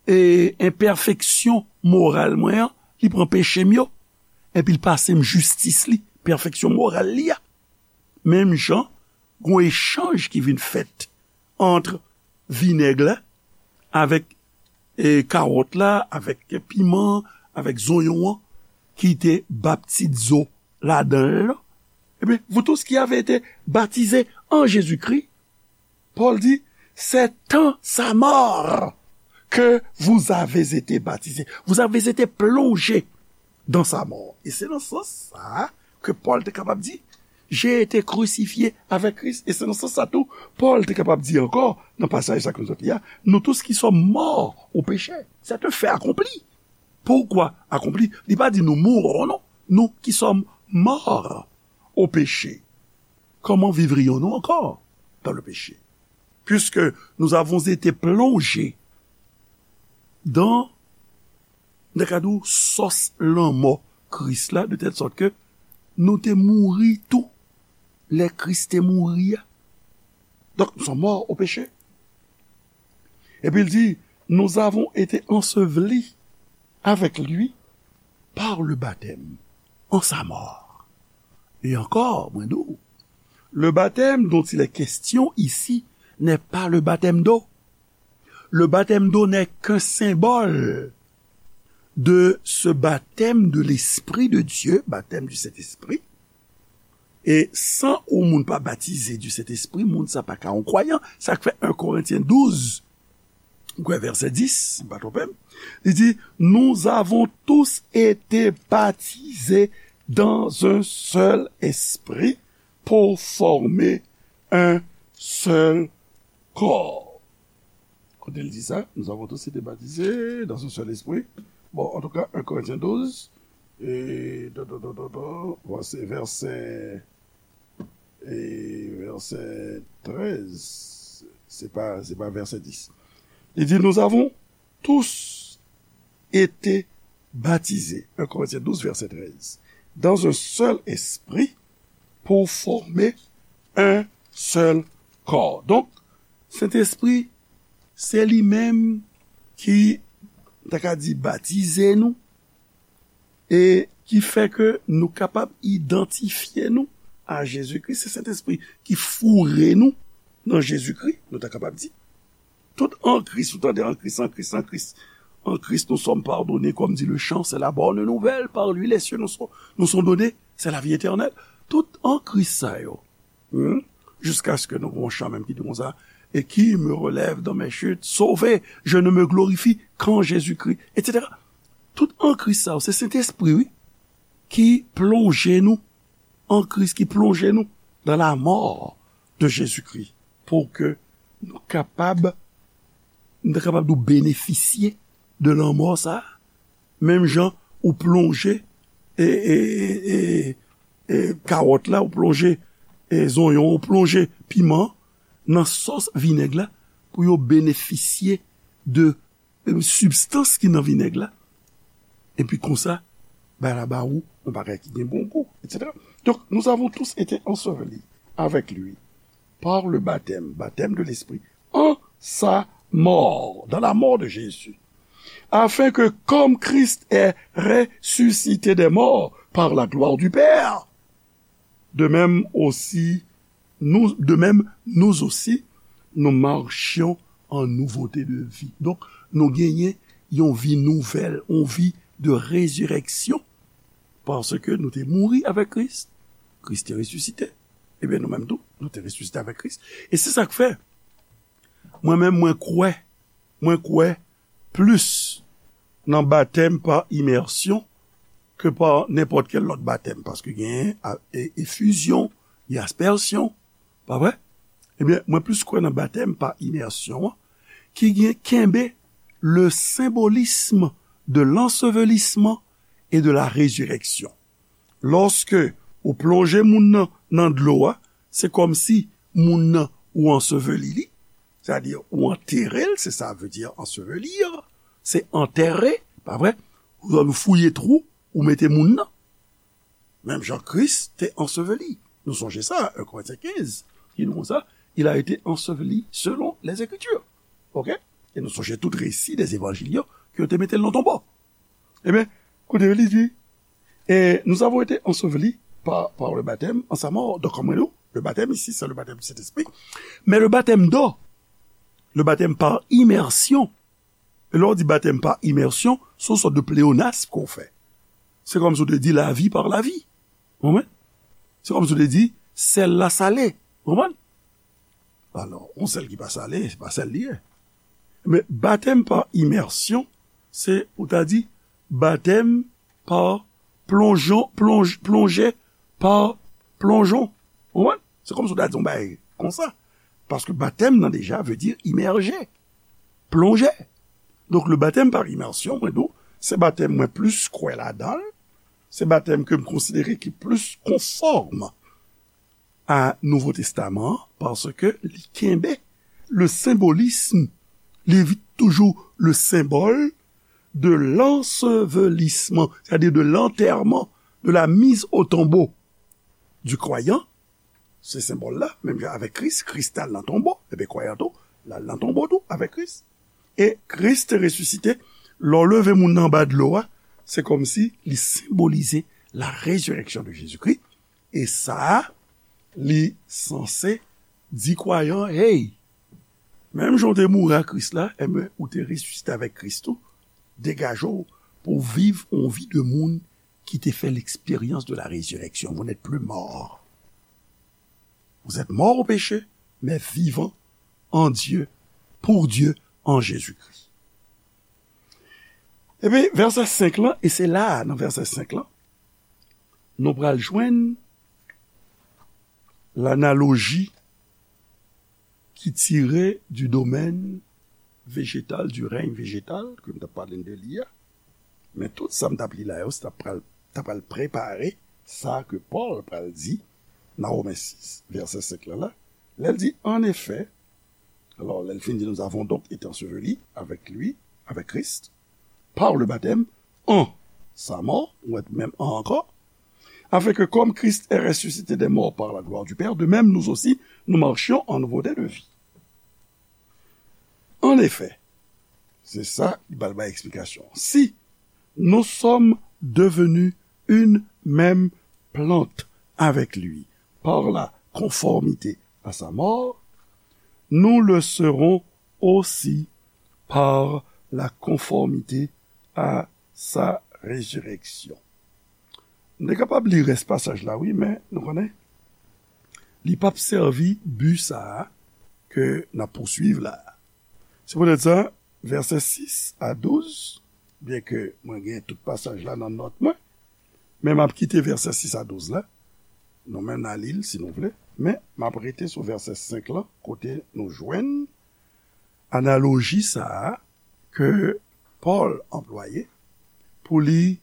e, enpèfeksyon moral mwen an, li pran peche m yo, epi l pase m jistis li, pèfeksyon moral li a. Menm jan, gen yon echanj ki vin fèt ant vinèg la avèk, e, kawòt la, avèk piman, avèk zonyon an, ki te ba pitit zo ladan l lan. Ebyen, vous tous qui avez été baptisés en Jésus-Christ, Pòl di, c'est en sa mort que vous avez été baptisés. Vous avez été plongés dans sa mort. E se nan sans sa a ke Pòl te kapab di, j'ai été crucifié avec Christ. E se nan sans sa tou, Pòl te kapab di ankò, nan pasaj sa ke nou sot li a, nous tous qui sommes morts au péché. C'est un fait accompli. Pourquoi accompli? Li pa di nous mourons, non. Nous qui sommes morts au péché. Comment vivrions-nous encore dans le péché? Puisque nous avons été plongés dans, nan ka di w, sòs lanmò Kris la, de telle sorte que nou te mouri tou lè Kris te mouri a. Donc, nous sommes morts au péché. Epi l di, nous avons été ensevelis avec lui par le baptême en sa mort. Et encore, mwen di w, le baptême dont il est question ici n'est pas le baptême d'eau. Le baptême d'eau n'est qu'un symbole de ce baptême de l'Esprit de Dieu, baptême du Saint-Esprit. E san yon moun pa batize du Saint-Esprit, moun sa pa ka yon kwayan. Sa k fè en Korentyen douz, m kwè vèsè dis, si m pa twonpe m, li di, nous avons tous été baptisés dans un seul esprit pour former un seul corps. Kote l di sa? Nous avons tous été baptisés dans un seul esprit. Bon, en tout cas, en Corinthiens douze, et, vèsè, vèsè, e vèsè trèz, se pa, se pa vèsè dis. Li di, nous avons tous été baptisés, en Corinthiens douze, vèsè trèz, dans un seul esprit pour former un seul corps. Donk, Sentespri, se li menm ki, ta ka di, batize nou, e ki fè ke nou kapab idantifye nou a Jezikri. Se Sentespri ki foure nou nan Jezikri, nou ta kapab di. Tout en Christ, ou tande, en Christ, en Christ, en Christ. En Christ, nous sommes pardonnés, comme dit le chant, c'est la bonne nouvelle, par lui les cieux nous sont, nous sont donnés, c'est la vie éternelle. Tout en Christ sa yo. Hmm? Jusqu'à ce que nou gon chan menm ki di konsa, et qui me relève dans mes chutes, sauvé, je ne me glorifie qu'en Jésus-Christ, et cetera. Tout en Christ sa yo, se Sentespri, wi, ki plonje nou en Christ, ki plonje nou dans la mort de Jésus-Christ, pou ke nou kapab, nou kapab nou benefisye de lanmò sa a. Menm jan ou plonje, e, e, e, e, kawòt la, ou plonje, e, zonyon, ou plonje piman nan sòs vinèg la pou yo benefisye de, e, sibstans ki nan vinèg la. Epi konsa, bay la ba ou, yon bagay ki gen bon gou, et cetera. Donc, nous avons tous été ensevelis avec lui par le baptême, baptême de l'Esprit, en sa mort, dans la mort de Jésus, afin que, comme Christ est ressuscité des morts par la gloire du Père, de même aussi, nous, de même, nous aussi, nous marchions en nouveauté de vie. Donk, nou genyen yon vi nouvèl, yon vi de rezireksyon, paske nou te mouri avèk Kris, Kris te resisite. Ebyen, nou menm tou, nou te resisite avèk Kris. E se sa k fè, mwen menm, mwen kwè, mwen kwè plis nan batèm pa imèsyon ke pa nenpòt kèl lòt batèm, paske genyen a- e- efizyon, gen aspèsyon, pa vre? Ebyen, mwen plis kwè nan batèm pa imèsyon an, ki gen kenbe le symbolisme de l'ensevelissement et de la résurrection. Lòske ou plonje moun nan nan dlo a, se kòmsi moun nan ou anseveli li, sètadi ou antere l, se sa vle di ensevelir, se antère, pa vre? Ou fouye twou, ou mete moun nan. Menm jan Kris te anseveli. Nou sonje sa, en Korentyen kenz, ki di nou konsa, il a été enseveli selon les Écritures. Ok? E nou sonje tout resi de evanjil yo, ke yo te mete l nan tonbo. Ebyen, koute, li di, et nous avons été ensevelis par, par le baptême en sa mort. Donc, comme nous, le baptême ici, c'est le baptême du Saint-Esprit. Mais le baptême d'eau, le baptême par immersion, e lè w di batèm pa imèsyon, se yon sòt de pleonasm ke w fè. Se kòmsi w te di lavi pa lavi. Ou konprann? Se kòmsi w te di sèl la sale. Ou konprann? Alò, yon sèl ki pa sale, se pa sèl li ye. Men batèm pa imèsyon, se ou ta di batèm pa plonjon, plonj, plonje pa plonjon. Ou konprann? Se kòmsi w ta di yon bagay konsa. Paske batèm nan deja vle di imèje, plonje. Donk, le baptême par immersion, mwen di w, se batèm mwen plis kwè ladan l, se batèm ke m konsidere ki plis konfòm a Nouvo Testaman an, paske li kenbe le symbolisme, li vit toujou le symbole de l'ensevelissement, c'est-à-dire de l'enterrement, de la mise au tombeau du croyant. Se senbòl la, menm jan avèk Kris, Kris t al nan tonbo, ebyen kwayan tou, l al nan tonbo tou avèk Kris. E Kris te resisite, lè w leve moun nan anba dlo a, se kòmsi li senbolize la résurrection de Jésus-Christ. E sa a, li sanse di kwayan, hey, menm jan w te mouri a Kris la, ebyen, ou te resisite avèk Kris tou, degaje w pou w viv yon vi de moun ki te fè l'expérience de la résurrection. Vous n'êtes plus mort. Vous êtes mort au péché, mais vivant en Dieu, pour Dieu, en Jésus-Christ. Epi, vèsè senk lan, e se la, nan vèsè senk lan, nou pral jwenn lanaloji ki tire du domaine végétal, du règne végétal, ke m t ap pale de li a. Men tout sa m t ap li la yo, se t ap pral, t ap pral prepare sa ke Pòl pral di nan Women sis, vèsè senk lan la. Lè l di, en effet, alò, lè l fin di, nous avons donc été ensevelis avec lui, avec Christ, par le baptême, en sa mort, ou wè menm en ankò, afin que comme Christ est ressuscité des morts par la gloire du Père, de même nous aussi, nous marchions en nouveauté de vie. En effet, se sa, li pral bay eksplikasyon. Si nous sommes devenus une même plante avec lui par la conformité à sa mort, nous le serons aussi par la conformité à sa résurrection. Nou te kapab li rès pasaj la, wi, men nou konnen, li p ap sèvi bi sa a ke n ap pouswiv la a. Se poutèt sa, vèsè sis a douz, byenke mwen gen tout pasaj la nan nòt mwen, men m ap kite vèsè sis a douz la. Nou menm n a li l si nou vle, men m ap rete sou vèsè senk lan, kote nou jwenn analoji sa a ke Pòl anplwaye pou li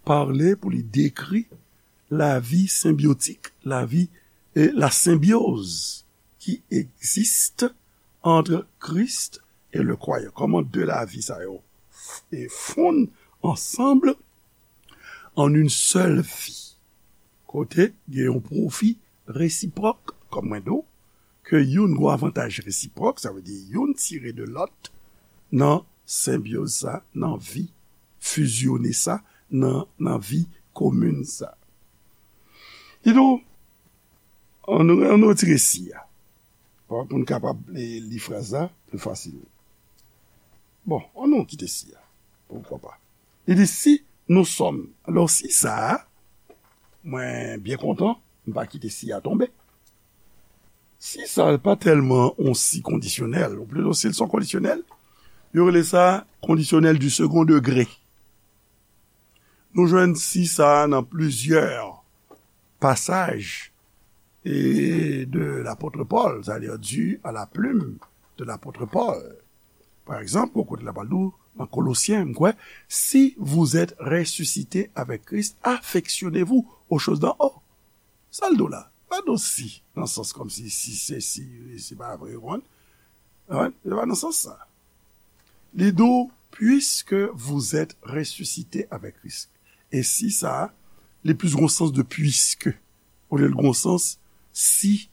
pale, pou li dekri lavi senbyotik, lavi, e la symbiose qui existe entre Christ et le croyant. Kòman de lavi sa yo f- e fonn ansanm en une seule vie. kote gen yon pwofi resipwòk, kòm mwen di w, ke youn gen avantaj resipwòk, sa vle di youn tire de lòt nan senbyoz sa, nan vi fizyone sa, nan, nan vi komin sa. Kidonk, ann, ann retire si a, pou n kapab li, li fraz la pli fasil. Bon, ann nou kite si a. Poukwa pa? Li di, si nous sommes. Alò, si sa a, mwen byen kontan, m pa kite si a tonbe. Si sa pa tèlman yon si kondisyonèl, ou plito si l se yon kondisyonèl, yo rele sa kondisyonèl du second degré. Nou jwenn si sa a nan plizyè pasaj e de l'apôtre Paul, c'est-à-dire dû à la plume de l'apôtre Paul. Pa egzanp, yon kote la pral di w, nan Kolosyen, m kwè, si vous êtes ressuscités avec Christ, affectionnez-vous aux choses d'en haut. Sa l di w la? Pa di w si, nan sans kòmsi si se si, se pa vre, ou konprann? Wi, se pa nan sans sa. Li di w, puisque vous êtes ressuscités avec Christ. E si sa a, li plis gon sans de puisque, olye l gon sans si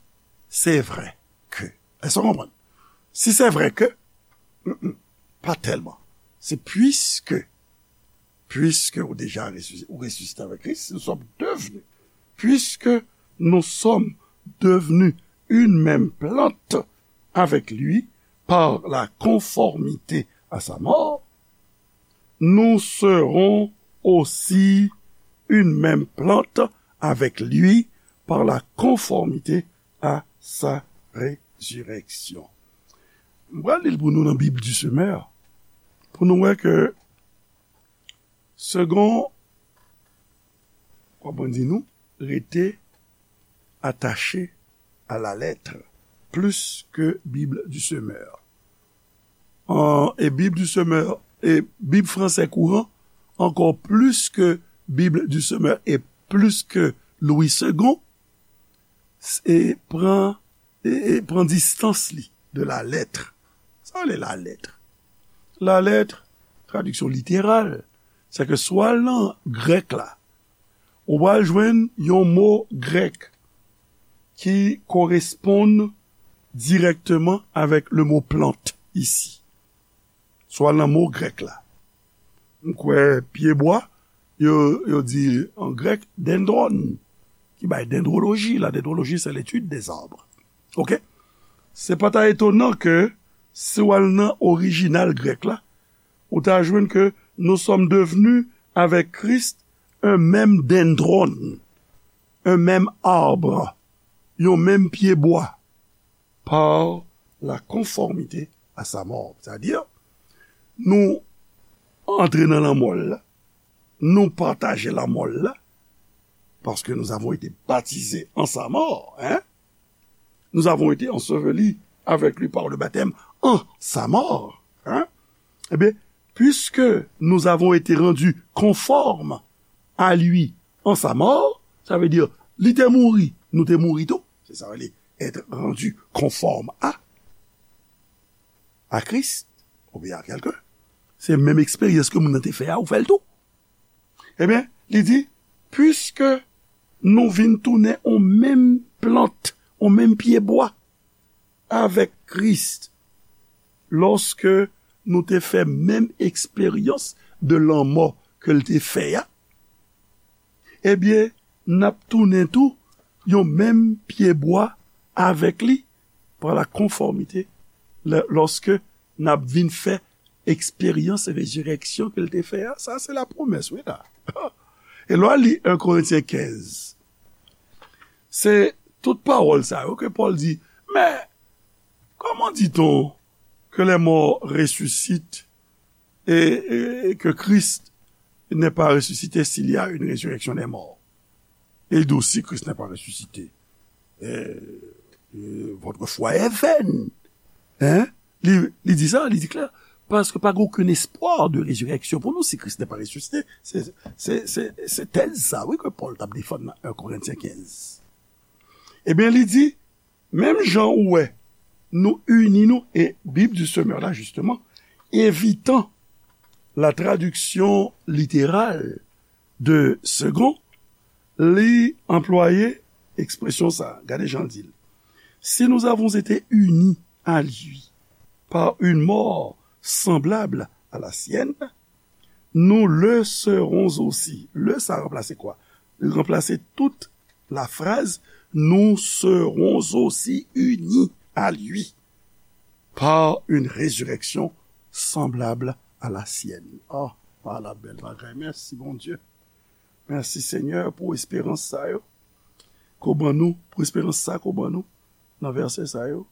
c'est vrai que. Èske w konprann? Si c'est vrai que, mm, mm, pa tèlman. Se puisque, puisque ou déjà ressuscité, ou ressuscité avec Christ, nous sommes devenus, puisque nous sommes devenus une même plante avec lui par la conformité à sa mort, nous serons aussi une même plante avec lui par la conformité à sa résurrection. M pral li l pou nou nan Bib du Semeur, pou nou wè ke segon, kòman di nou, rete attaché à la lettre, plus que Bible du Semeur. An, e Bib du Semeur, e Bib fransè kouran, ankò plis ke Bib du Semeur e plis ke Louis Segond, e pran, e, e pran distans li de la lettre. Sa vle la lettre? La lettre, tradiksyon literal, se ke swa nan grèk la, ou pral jwenn yon mo grèk ki koresponn dirèkteman avèk le mo plante isi. Swa nan mo grèk la. M kwè pyebwa, yo, yo di an grèk dendron, ki bay dendroloji. La dendroloji, c'est l'étude des arbres. Oke? Se pa ta etonan ke si w al nan orijinal grèk la, ou ta jwenn ke nous sommes devenus avec Christ un même dendron, un même arbre, yon menm pyebwa, par la conformité à sa mort. Sètadi, nou antre nan lanmò l la, nou pataje lanmò l la, parce que nous avons été baptisés en sa mort, hein? Nous avons été ensevelis avec lui par le baptême en sa mort, hein? Eh bien, puisque nous avons été rendus conformes à lui en sa mort, sa vle di, li te mouri, nou te mouri tou. Se sa vle être rendu conforme à, à Christ, oubyen a kèlken. Se menm eksperyans ke moun nan te fè a, ou fè l tou. Ebyen, li di, puiske nou vin tounen on menm plant, on menm pyebwa avèk Kris, lòske nou te fè menm eksperyans de lanmò ke l te fè a, ebyen, n ap tounen tou yon menm pyebwa avèk li, pa la konfòmite, lè, lòske n ap vin fè eksperyans rezirèksyon ke l te fè a. Sa, se lapwomès, wi, la. E lè w li en Korentyen kenz, se tout pawòl sa yo ke Pòl di, mais comment dit-on que les morts ressuscitent et, et que Christ n'est pas ressuscité s'il y a une résurrection des morts? Et il dit aussi, Christ n'est pas ressuscité, euh, euh, votre foi est vaine. Hein? Li, li di sa, li di klè. Paske pa gen okenn espwa de rezirèksyon pou nou si Kris n'est pas ressuscité. Se, se, se, se tèz sa, wi, ke Pòl t ap defann nan en Korentyen kenz. Ebyen, li di, menm jan ou wè, nou ini nou, e Bib du Semeur la, justement, evitan la traduction littérale de Segond, Li anplwaye ekspresyon sa a. Gade jan l di l. Si nous avons été unis à lui par une mort semblable à la sienne, nous le serons aussi. Le sa ranplase kwa? Li ranplase tout la fraz, nous serons aussi unis à lui par une résurrection semblable à la sienne. Oh, pa la bèl bagay. Mèsi, Bondye. Mèsi, Senyè, pou esperans sa yo. Ke w ban nou, pou esperans sa ke w ban nou nan vèsè sa yo.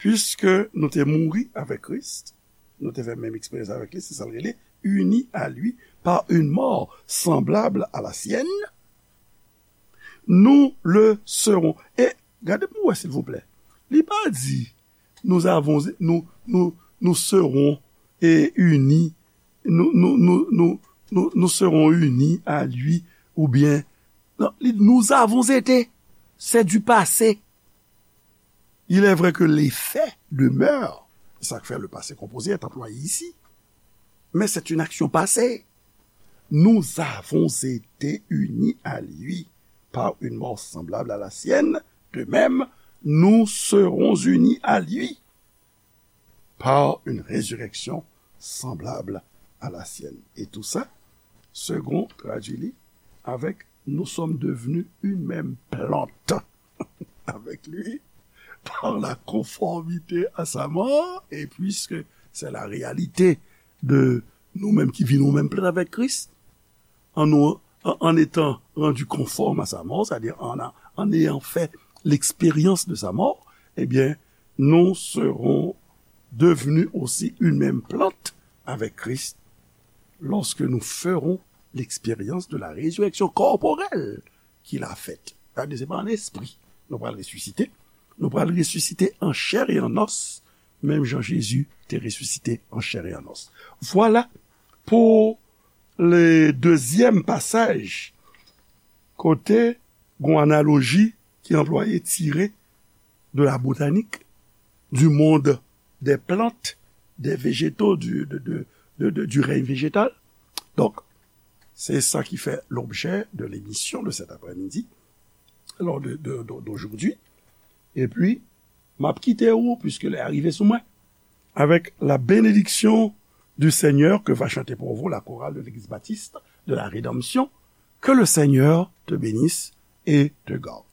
Puiske nou te mouri avèk Kris, nou te fè menm eksperyans avèk li, se sa l rele, unis à lui par une mort semblable à la sienne, nous le serons. E gade pou wè, silvouplè. Li pa di, nous avons, nous, nous, nous serons, eh, unis, nous, nous, nous, nous, nous, nous serons unis à lui, oubyen, non, li, nous avons été, c'est du passé. Il est vrai que les faits demeurent, c'est ça que fait le passé composé est employé ici, mais c'est une action passée. Nous avons été unis à lui par une mort semblable à la sienne, de même, nous serons unis à lui par une résurrection semblable à la sienne. Et tout ça, Segond tradui li avec nous sommes devenus une même plante avec lui par la conformité à sa mort, et puisque c'est la réalité de nous-mêmes qui vivons même plein avec Christ, en, nous, en, en étant rendus conformes à sa mort, c'est-à-dire en, en ayant fait l'expérience de sa mort, eh bien, nous serons devenus aussi une même plante avec Christ lorsque nous ferons l'expérience de la résurrection corporelle qu'il a faite. Sa vle di, se pa an espri nou pral resisite. Nou pral resisite an chè e an os, menm jan Jezi te resisite an chè e an os. Vwala pou le dezyèm pasaj kote gon analoji ki anplwaye tire de la botanique, du monde des plantes, des végétaux, du, de, de, de, de, du règne végétal. Donc, c'est ça qui fait l'objet de l'émission de cet après-midi, alors de, de, de, d'aujourd'hui. Et puis, m ap kite ou, puisque lè a rive sou mwen, avec la bénédiction du Seigneur que va chanter pour vous la chorale de l'Église baptiste de la Rédemption. Que le Seigneur te bénisse et te garde.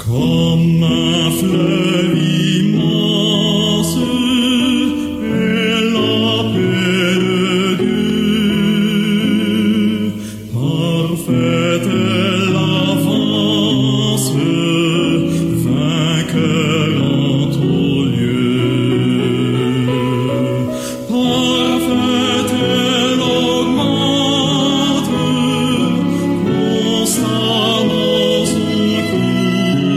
Kòm flèv